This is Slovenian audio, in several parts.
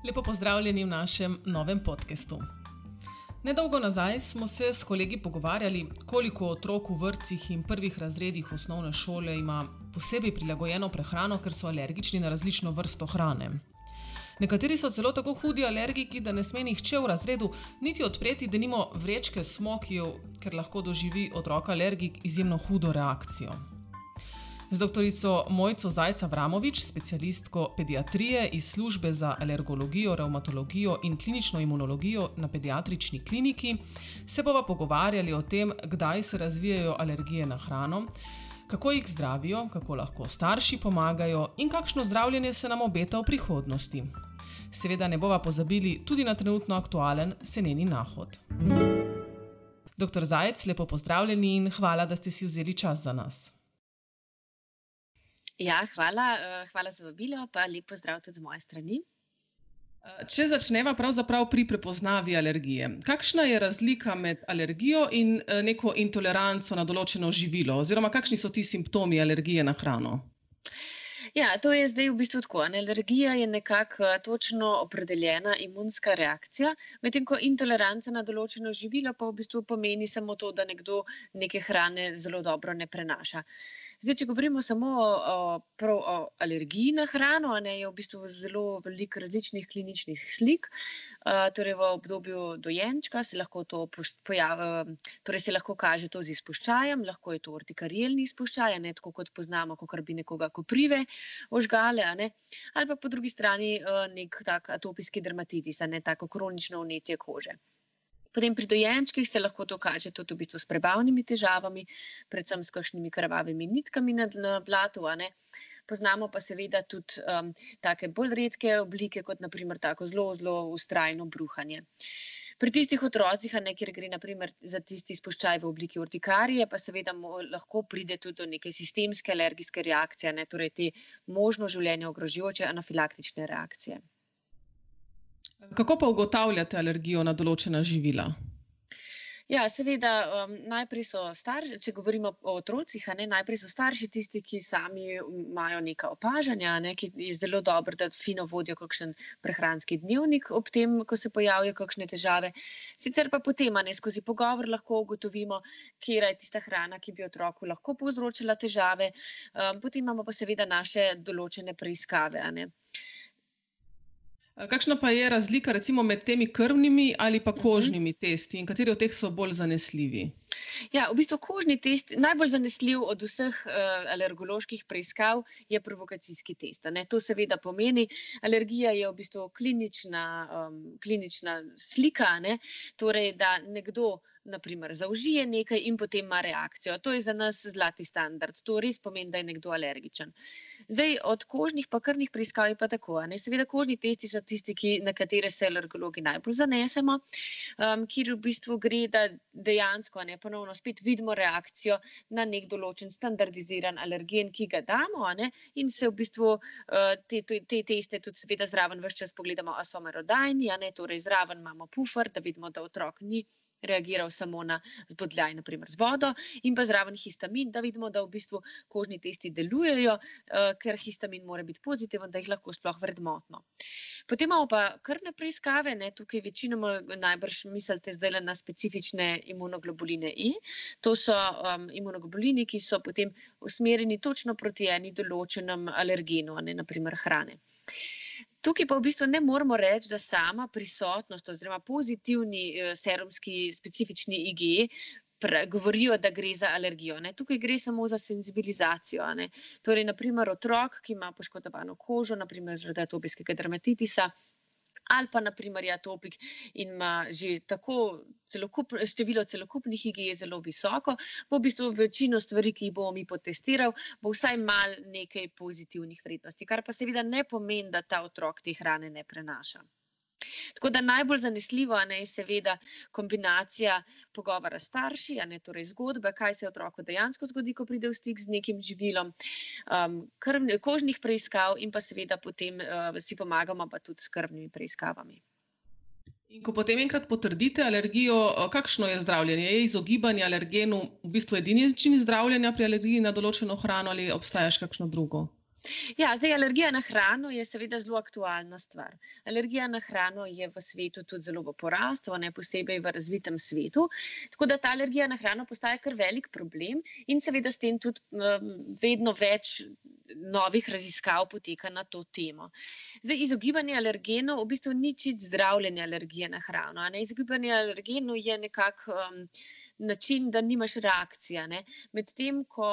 Lepo pozdravljeni v našem novem podcastu. Nedolgo nazaj smo se s kolegi pogovarjali, koliko otrok v vrtcih in prvih razredih osnovne šole ima posebej prilagojeno prehrano, ker so alergični na različno vrsto hrane. Nekateri so celo tako hudi alergiki, da ne sme nihče v razredu niti odpreti denimo vrečke smokijev, ker lahko doživi otrok alergik izjemno hudo reakcijo. Z doktorico Mojco Zajc-Avramovič, specialistko pediatrije iz službe za alergologijo, revmatologijo in klinično imunologijo na pediatrični kliniki, se bova pogovarjali o tem, kdaj se razvijajo alergije na hrano, kako jih zdravijo, kako lahko starši pomagajo in kakšno zdravljenje se nam obeta v prihodnosti. Seveda ne bova pozabili tudi na trenutno aktualen seneni nahod. Doktor Zajc, lepo pozdravljeni in hvala, da ste si vzeli čas za nas. Ja, hvala za vabilo, pa lep pozdrav tudi z moje strani. Če začneva pravzaprav pri prepoznavi alergije. Kakšna je razlika med alergijo in neko intoleranco na določeno živilo, oziroma kakšni so ti simptomi alergije na hrano? Ja, to je zdaj v bistvu tako. Alergija je nekako točno opredeljena imunska reakcija, medtem ko intoleranca na določeno živilo pa v bistvu pomeni samo to, da nekdo neke hrane zelo dobro ne prenaša. Zdaj, če govorimo samo o alergiji na hrano, je v bistvu zelo veliko različnih kliničnih slik. Torej v obdobju dojenčka se lahko to se lahko kaže to z izpuščajem, lahko je to urtikarielni izpuščaj, tako kot poznamo, kakor bi nekoga koprive ožgale, ali pa po drugi strani nek tak atopijski dermatitis, tako kronično vnetje kože. Potem pri dojenčkih se lahko to kaže tudi v bistvu s prebavnimi težavami, predvsem s kakšnimi krvavimi nitkami na blatu, Poznamo pa seveda tudi take bolj redke oblike, kot naprimer tako zelo vztrajno bruhanje. Pri tistih otrocih, kjer gre naprimer za tisti izpuščaj v obliki urtikarije, pa seveda lahko pride tudi do neke sistemske alergijske reakcije, torej te možno življenje ogrožajoče anafilaktične reakcije. Kako pa ugotavljate alergijo na določena živila? Ja, seveda, najprej so če govorimo o otrocih, najprej so starši tisti, ki sami imajo neka opažanja, ki je zelo dobro, da fino vodijo kakšen prehranski dnevnik ob tem, ko se pojavijo kakšne težave. Sicer pa potem, skozi pogovor lahko ugotovimo, katera je tista hrana, ki bi otroku lahko povzročila težave. Potem imamo pa seveda naše določene preiskave, Kakšna pa je razlika recimo med temi krvnimi ali pa kožnimi testi in kateri od teh so bolj zanesljivi? Ja, v bistvu kožni test, najbolj zanesljiv od vseh alergoloških preiskav je provokacijski test. To seveda pomeni, alergija je v bistvu klinična slika, torej da nekdo naprimer zaužije nekaj in potem ima reakcijo. To je za nas zlati standard. To res pomeni, da je nekdo alergičen. Zdaj, od kožnih pa krvnih preiskav je pa tako. Seveda kožni testi so tisti, na katere se alergologi najbolj zanesemo, kjer v bistvu gre, da dejansko ponovno spet vidimo reakcijo na nek določen standardiziran alergen, ki ga damo, in se v bistvu te teste tudi seveda zraven ves čas pogledamo, a so merodajni, torej zraven imamo pufer, da vidimo, da otrok ni reagiral samo na zbodljaj, naprimer z vodo, in pa zraven histamin, da vidimo, da v bistvu kožni testi delujejo, ker histamin mora biti pozitiven, da jih lahko sploh vrednotno. Potem imamo pa krvne preiskave, tukaj večinoma najbrž mislite zdaj na specifične imunoglobuline I. To so imunoglobulini, ki so potem usmerjeni točno proti eni določenem alergenu, naprimer hrane. Tukaj pa v bistvu ne moramo reči, da sama prisotnost oziroma pozitivni serumski specifični IgE govorijo, da gre za alergijo. Tukaj gre samo za senzibilizacijo. Torej, naprimer, otrok, ki ima poškodovano kožo, naprimer zaradi atopijskega dermatitisa, ali pa naprimer je atopik in ima že tako število celokupnih IgE zelo visoko, bo v bistvu večino stvari, ki jih bomo mi potestirali, bo vsaj malo nekaj pozitivnih vrednosti, kar pa seveda ne pomeni, da ta otrok te hrane ne prenaša. Tako da najbolj zanesljivo je seveda kombinacija pogovora s starši, torej zgodbe, kaj se otroku dejansko zgodi, ko pride v stik z nekim živilom, kožnih preiskav in pa seveda potem si pomagamo pa tudi s krvnimi preiskavami. In ko potem enkrat potrdite alergijo, kakšno je zdravljenje? Je izogibanje alergenu v bistvu edini način zdravljenja pri alergiji na določeno hrano ali obstaja še kakšno drugo? Ja, zdaj alergija na hrano je seveda zelo aktualna stvar. Alergija na hrano je v svetu tudi zelo v porastu, ne posebej v razvitem svetu. Tako da ta alergija na hrano postaja kar velik problem in seveda s tem tudi vedno več novih raziskav poteka na to temo. Zdaj, izogibanje alergenov v bistvu ni čisto zdravljenje alergije na hrano. A ne? Izogibanje alergenov je nekako način, da nimaš reakcije. Medtem ko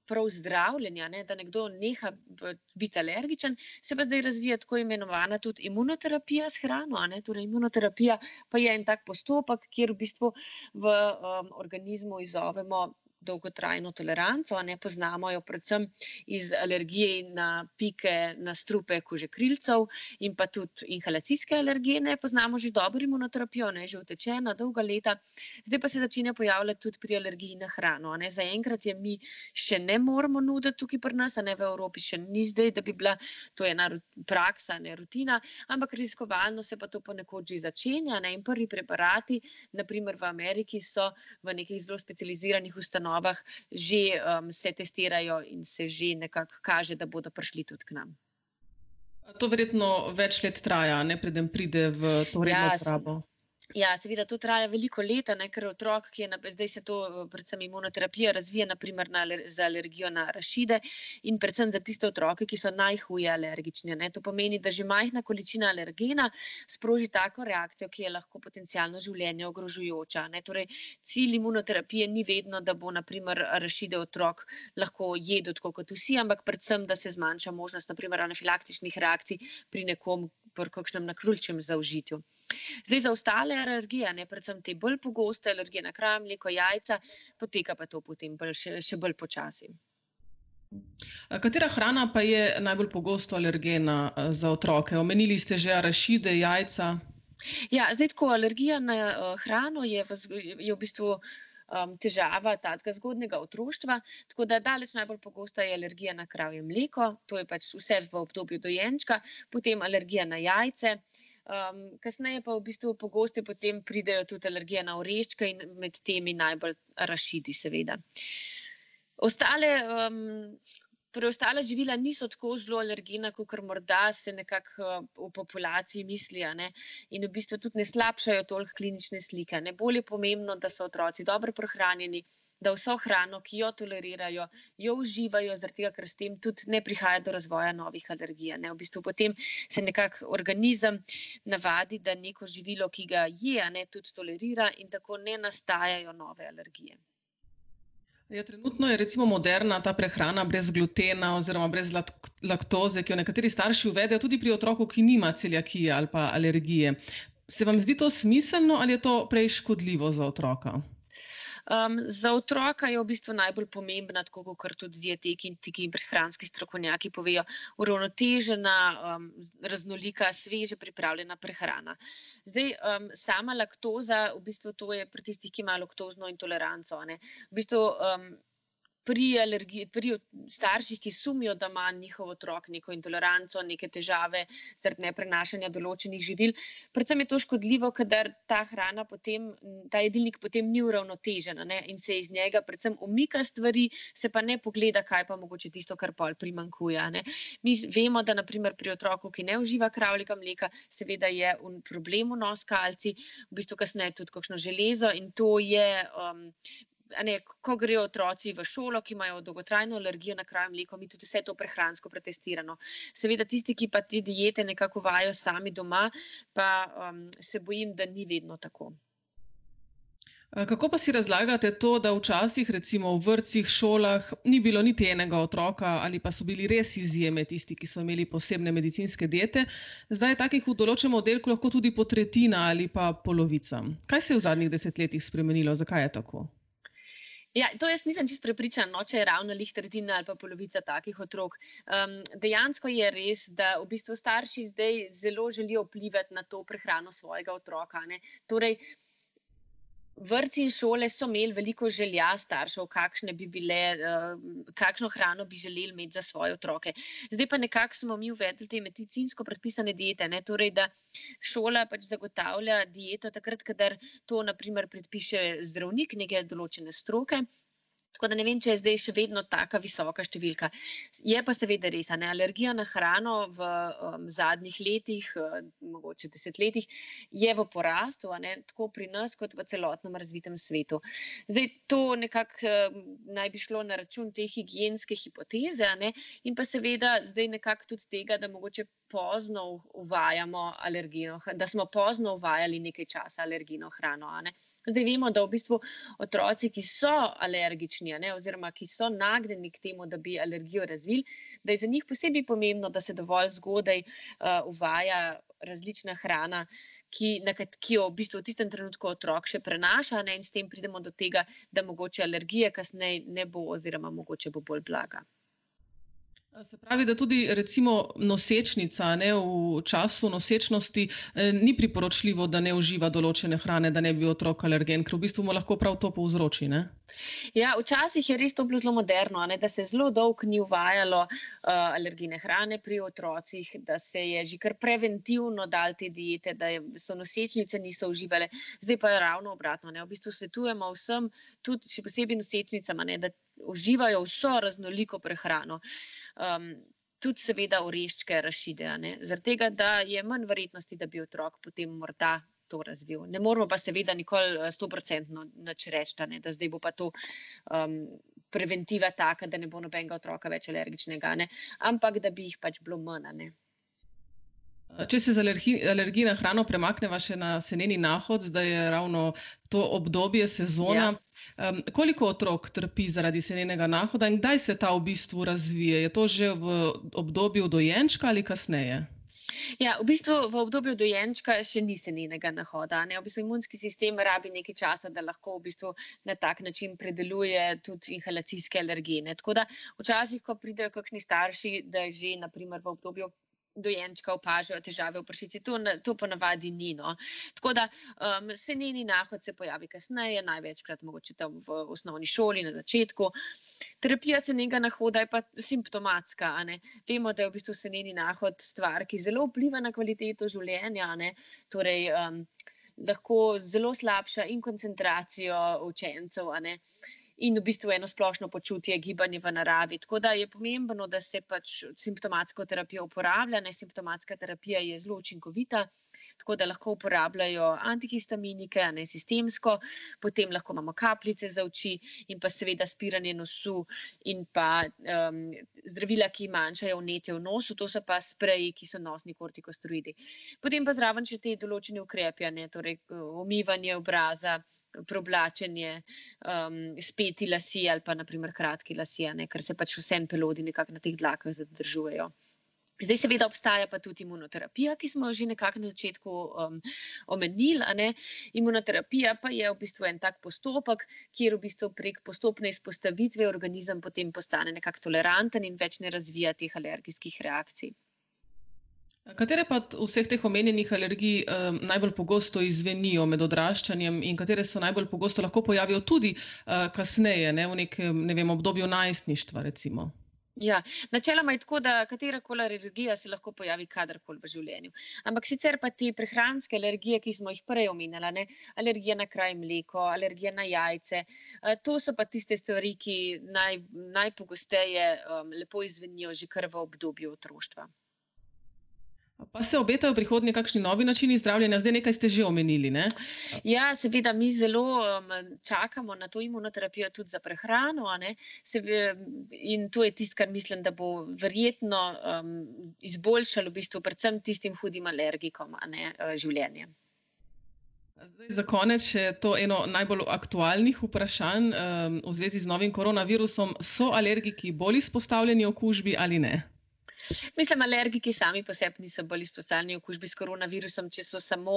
prav zdravljenja, da nekdo neha biti alergičen, se pa zdaj razvija tako imenovana tudi imunoterapija s hrano. Torej, imunoterapija pa je en tak postopek, kjer v bistvu v organizmu izzovemo dolgotrajno toleranco, poznamo jo predvsem iz alergije na pike, na strupe kožekrilcev in pa tudi inhalacijske alergene. Poznamo že dobro imunoterapijo, že utečena dolga leta. Zdaj pa se začenja pojavljati tudi pri alergiji na hrano. Zaenkrat je mi še ne moramo nuditi tukaj pri nas, v Evropi še ni zdaj, da bi bila to ena praksa, rutina, ampak raziskovalno se pa to ponekod že začenja. In prvi preparati, naprimer v Ameriki, so v nekih zelo specializiranih ustanovah že se testirajo in se že nekako kaže, da bodo prišli tudi k nam. To verjetno več let traja, preden pride v to redno uporabo. Ja, seveda to traja veliko let, ker otrok, ki je zdaj se to predvsem imunoterapija razvija naprimer za alergijo na arašide in predvsem za tiste otroke, ki so najhuje alergični. To pomeni, da že majhna količina alergena sproži tako reakcijo, ki je lahko potencialno življenje ogrožujoča. Torej, cilj imunoterapije ni vedno, da bo naprimer arašide otrok lahko jedel tako kot vsi, ampak predvsem, da se zmanjša možnost naprimer anafilaktičnih reakcij pri nekom pri kakšnem naključnem zaužitju. Zdaj za ostale alergije, predvsem te bolj pogoste alergije na krav, mleko, jajca, poteka pa to potem še bolj počasi. Katera hrana pa je najbolj pogosto alergena za otroke? Omenili ste že arašide, jajca. Ja, zdaj tako, alergija na hrano je v bistvu težava tega zgodnjega otroštva, tako da daleč najbolj pogosta je alergija na kravje mleko, to je pač vse v obdobju dojenčka, potem alergija na jajce, kasneje pa v bistvu pogoste potem pridejo tudi alergije na oreščke in med temi najbolj arašidi seveda. Preostala živila niso tako zelo alergena, kakor morda se nekako v populaciji misli, in v bistvu tudi ne slabšajo toliko klinične slike. Bolj je pomembno, da so otroci dobro prehranjeni, da vso hrano, ki jo tolerirajo, jo uživajo, zaradi tega, ker s tem tudi ne prihaja do razvoja novih alergij. V bistvu potem se nekako organizem navadi, da neko živilo, ki ga je, tudi tolerira in tako ne nastajajo nove alergije. Ja, trenutno je recimo moderna ta prehrana brez glutena oziroma brez laktoze, ki jo nekateri starši uvedejo tudi pri otroku, ki nima celiakije ali pa alergije. Se vam zdi to smiselno ali je to prej škodljivo za otroka? Za otroka je v bistvu najbolj pomembna, tako kot tudi dietetiki in prehranski strokovnjaki povejo, uravnotežena, raznolika, sveže pripravljena prehrana. Zdaj, sama laktoza, v bistvu to je pri tistih, ki imajo laktozno intoleranco. V bistvu pri starših, ki sumijo, da ima njihov otrok neko intoleranco, neke težave zaradi neprenašanja določenih živil, predvsem je to škodljivo, kadar ta hrana potem, ta jedilnik potem ni uravnotežen in se iz njega predvsem umika stvari, se pa ne pogleda, kaj pa mogoče tisto, kar pol primanjkuje. Mi vemo, da naprimer pri otroku, ki ne uživa kravjega mleka, seveda je problem vnos kalcij, v bistvu kasneje tudi kakšno železo in to je ko grejo otroci v šolo, ki imajo dolgotrajno alergijo na kravje mleko, mi tudi vse to prehransko pretestirano. Seveda tisti, ki pa te diete nekako uvajajo sami doma, pa se bojim, da ni vedno tako. Kako pa si razlagate to, da včasih recimo v vrtcih, šolah ni bilo niti enega otroka ali pa so bili res izjeme tisti, ki so imeli posebne medicinske diete, zdaj je takih v določenem oddelku lahko tudi po tretjina ali pa polovica. Kaj se je v zadnjih desetletjih spremenilo? Zakaj je tako? Ja, to jaz nisem čisto prepričana, če je ravno tretjina ali pa polovica takih otrok. Dejansko je res, da v bistvu starši zdaj zelo želijo vplivati na to prehrano svojega otroka. Torej, vrtci in šole so imeli veliko želja staršev, kakšno hrano bi želeli imeti za svoje otroke. Zdaj pa nekako smo mi uvedli te medicinsko predpisane diete, torej da šola pač zagotavlja dieto takrat, kadar to naprimer predpiše zdravnik neke določene stroke. Tako da ne vem, če je zdaj še vedno taka visoka številka. Je pa seveda res, alergija na hrano v zadnjih letih, mogoče desetletjih, je v porastu, tako pri nas kot v celotnem razvitem svetu. Zdaj, to nekako naj bi šlo na račun te higienske hipoteze, in pa seveda zdaj nekako tudi tega, da mogoče pozno uvajamo alergijno, da smo pozno uvajali nekaj časa alergijno hrano, Zdaj vemo, da v bistvu otroci, ki so alergični, oziroma ki so nagnjeni k temu, da bi alergijo razvili, da je za njih posebej pomembno, da se dovolj zgodaj uvaja različna hrana, ki jo v bistvu v tistem trenutku otrok še prenaša, in s tem pridemo do tega, da mogoče alergije kasneje ne bo oziroma mogoče bo bolj blaga. Se pravi, da tudi recimo nosečnica v času nosečnosti ni priporočljivo, da ne uživa določene hrane, da ne bi otrok alergen, ker v bistvu mu lahko prav to povzroči, ne? Ja, včasih je res to bilo zelo moderno, da se zelo dolgo ni uvajalo alergijne hrane pri otrocih, da se je že kar preventivno dal te diete, da so nosečnice niso uživale. Zdaj pa je ravno obratno, v bistvu svetujemo vsem, tudi še posebej nosečnicam, da uživajo vso raznoliko prehrano. Tudi seveda oreščke, arašide, zaradi tega, da je manj verjetnosti, da bi otrok potem morda to razvil. Ne moramo pa seveda nikoli 100% nič reči, da zdaj bo pa to preventiva taka, da ne bo nobenega otroka več alergičnega, ampak da bi jih pač bilo manj, Če se z alergij na hrano premakneva še na seneni nahod, zdaj je ravno to obdobje, sezona. Ja. Koliko otrok trpi zaradi senenega nahoda in kdaj se ta v bistvu razvije? Je to že v obdobju dojenčka ali kasneje? Ja, v bistvu v obdobju dojenčka še ni senenega nahoda. V bistvu imunski sistem rabi nekaj časa, da lahko v bistvu na tak način predeluje tudi inhalacijske alergene. Tako da včasih, ko pridejo kakšni starši, da že na primer v obdobju dojenčka opažajo težave v pršici, to ponavadi ni. Tako da seneni nahod se pojavi kasneje, največkrat mogoče tam v osnovni šoli, na začetku. Terapija senenega nahoda je pa simptomatska. Vemo, da je v bistvu seneni nahod stvar, ki zelo vpliva na kvaliteto življenja, torej lahko zelo slabša in koncentracijo učencev, in v bistvu eno splošno počutje, gibanje v naravi. Tako da je pomembno, da se pač simptomatsko terapijo uporablja. Simptomatska terapija je zelo učinkovita, tako da lahko uporabljajo antihistaminike, sistemsko, potem lahko imamo kapljice za oči in pa seveda spiranje nosu in pa zdravila, ki manjšajo vnetje v nosu, to so pa spreji, ki so nosni kortikosteroidi. Potem pa zraven še te določene ukrepi, torej umivanje obraza, preoblačenje, speti lasje ali pa naprimer kratki lasje, ker se pač vseeno pelodi nekako na teh dlakah zadržujejo. Zdaj seveda obstaja pa tudi imunoterapija, ki smo jo že nekako na začetku omenili. Imunoterapija pa je v bistvu en tak postopek, kjer v bistvu prek postopne izpostavitve organizem potem postane nekako toleranten in več ne razvija teh alergijskih reakcij. Katere pa od vseh teh omenjenih alergij najbolj pogosto izzvenijo med odraščanjem in katere se najbolj pogosto lahko pojavijo tudi kasneje, v nekem obdobju najstništva, recimo? Ja, načeloma je tako, da katerakoli alergija se lahko pojavi kadarkoli v življenju. Ampak sicer pa te prehranske alergije, ki smo jih prej omenjali, alergija na kraj mleko, alergija na jajce, to so pa tiste stvari, ki najpogosteje lepo izzvenijo že kar v obdobju otroštva. Pa se obetajo v prihodnje kakšni novi načini zdravljenja? Zdaj nekaj ste že omenili, ne? Ja, seveda, mi zelo čakamo na to imunoterapijo tudi za prehrano, in to je tisto, kar mislim, da bo verjetno izboljšalo v bistvu predvsem tistim hudim alergikom, življenje. Zdaj, za konec še to eno najbolj aktualnih vprašanj v zvezi z novim koronavirusom. So alergiki bolj izpostavljeni okužbi ali ne? Mislim, alergiki sami po sebi niso bolj izpostavljeni okužbi s koronavirusom, če so samo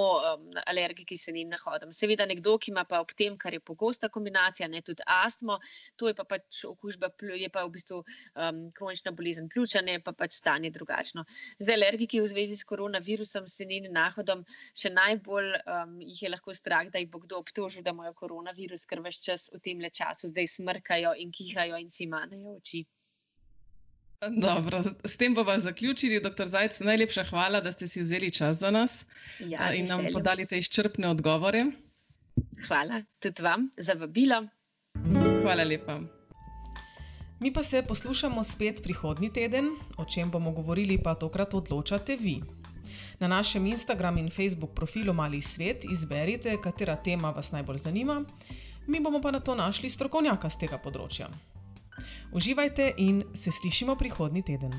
alergiki senenim nahodom. Seveda nekdo, ki ima pa ob tem, kar je pogosta kombinacija, tudi astmo, to je pa pač okužba, je pa v bistvu kronična bolezen pljuča, pa pač stanje drugačno. Zdaj, alergiki v zvezi s koronavirusom, senenim nahodom, še najbolj jih je lahko strah, da jih bo kdo obtožil, da imajo koronavirus, ker ves čas v tem času zdaj smrkajo in kihajo in si manejo oči. Dobro, s tem bova zaključili. Dr. Zajc, najlepša hvala, da ste si vzeli čas za nas in nam podali te izčrpne odgovore. Hvala tudi vam za vabilo. Hvala lepa. Mi pa se poslušamo spet prihodnji teden, o čem bomo govorili pa tokrat odločate vi. Na našem Instagram in Facebook profilu Mali svet izberite, katera tema vas najbolj zanima, mi bomo pa na to našli strokovnjaka z tega področja. Uživajte in se slišimo prihodnji teden.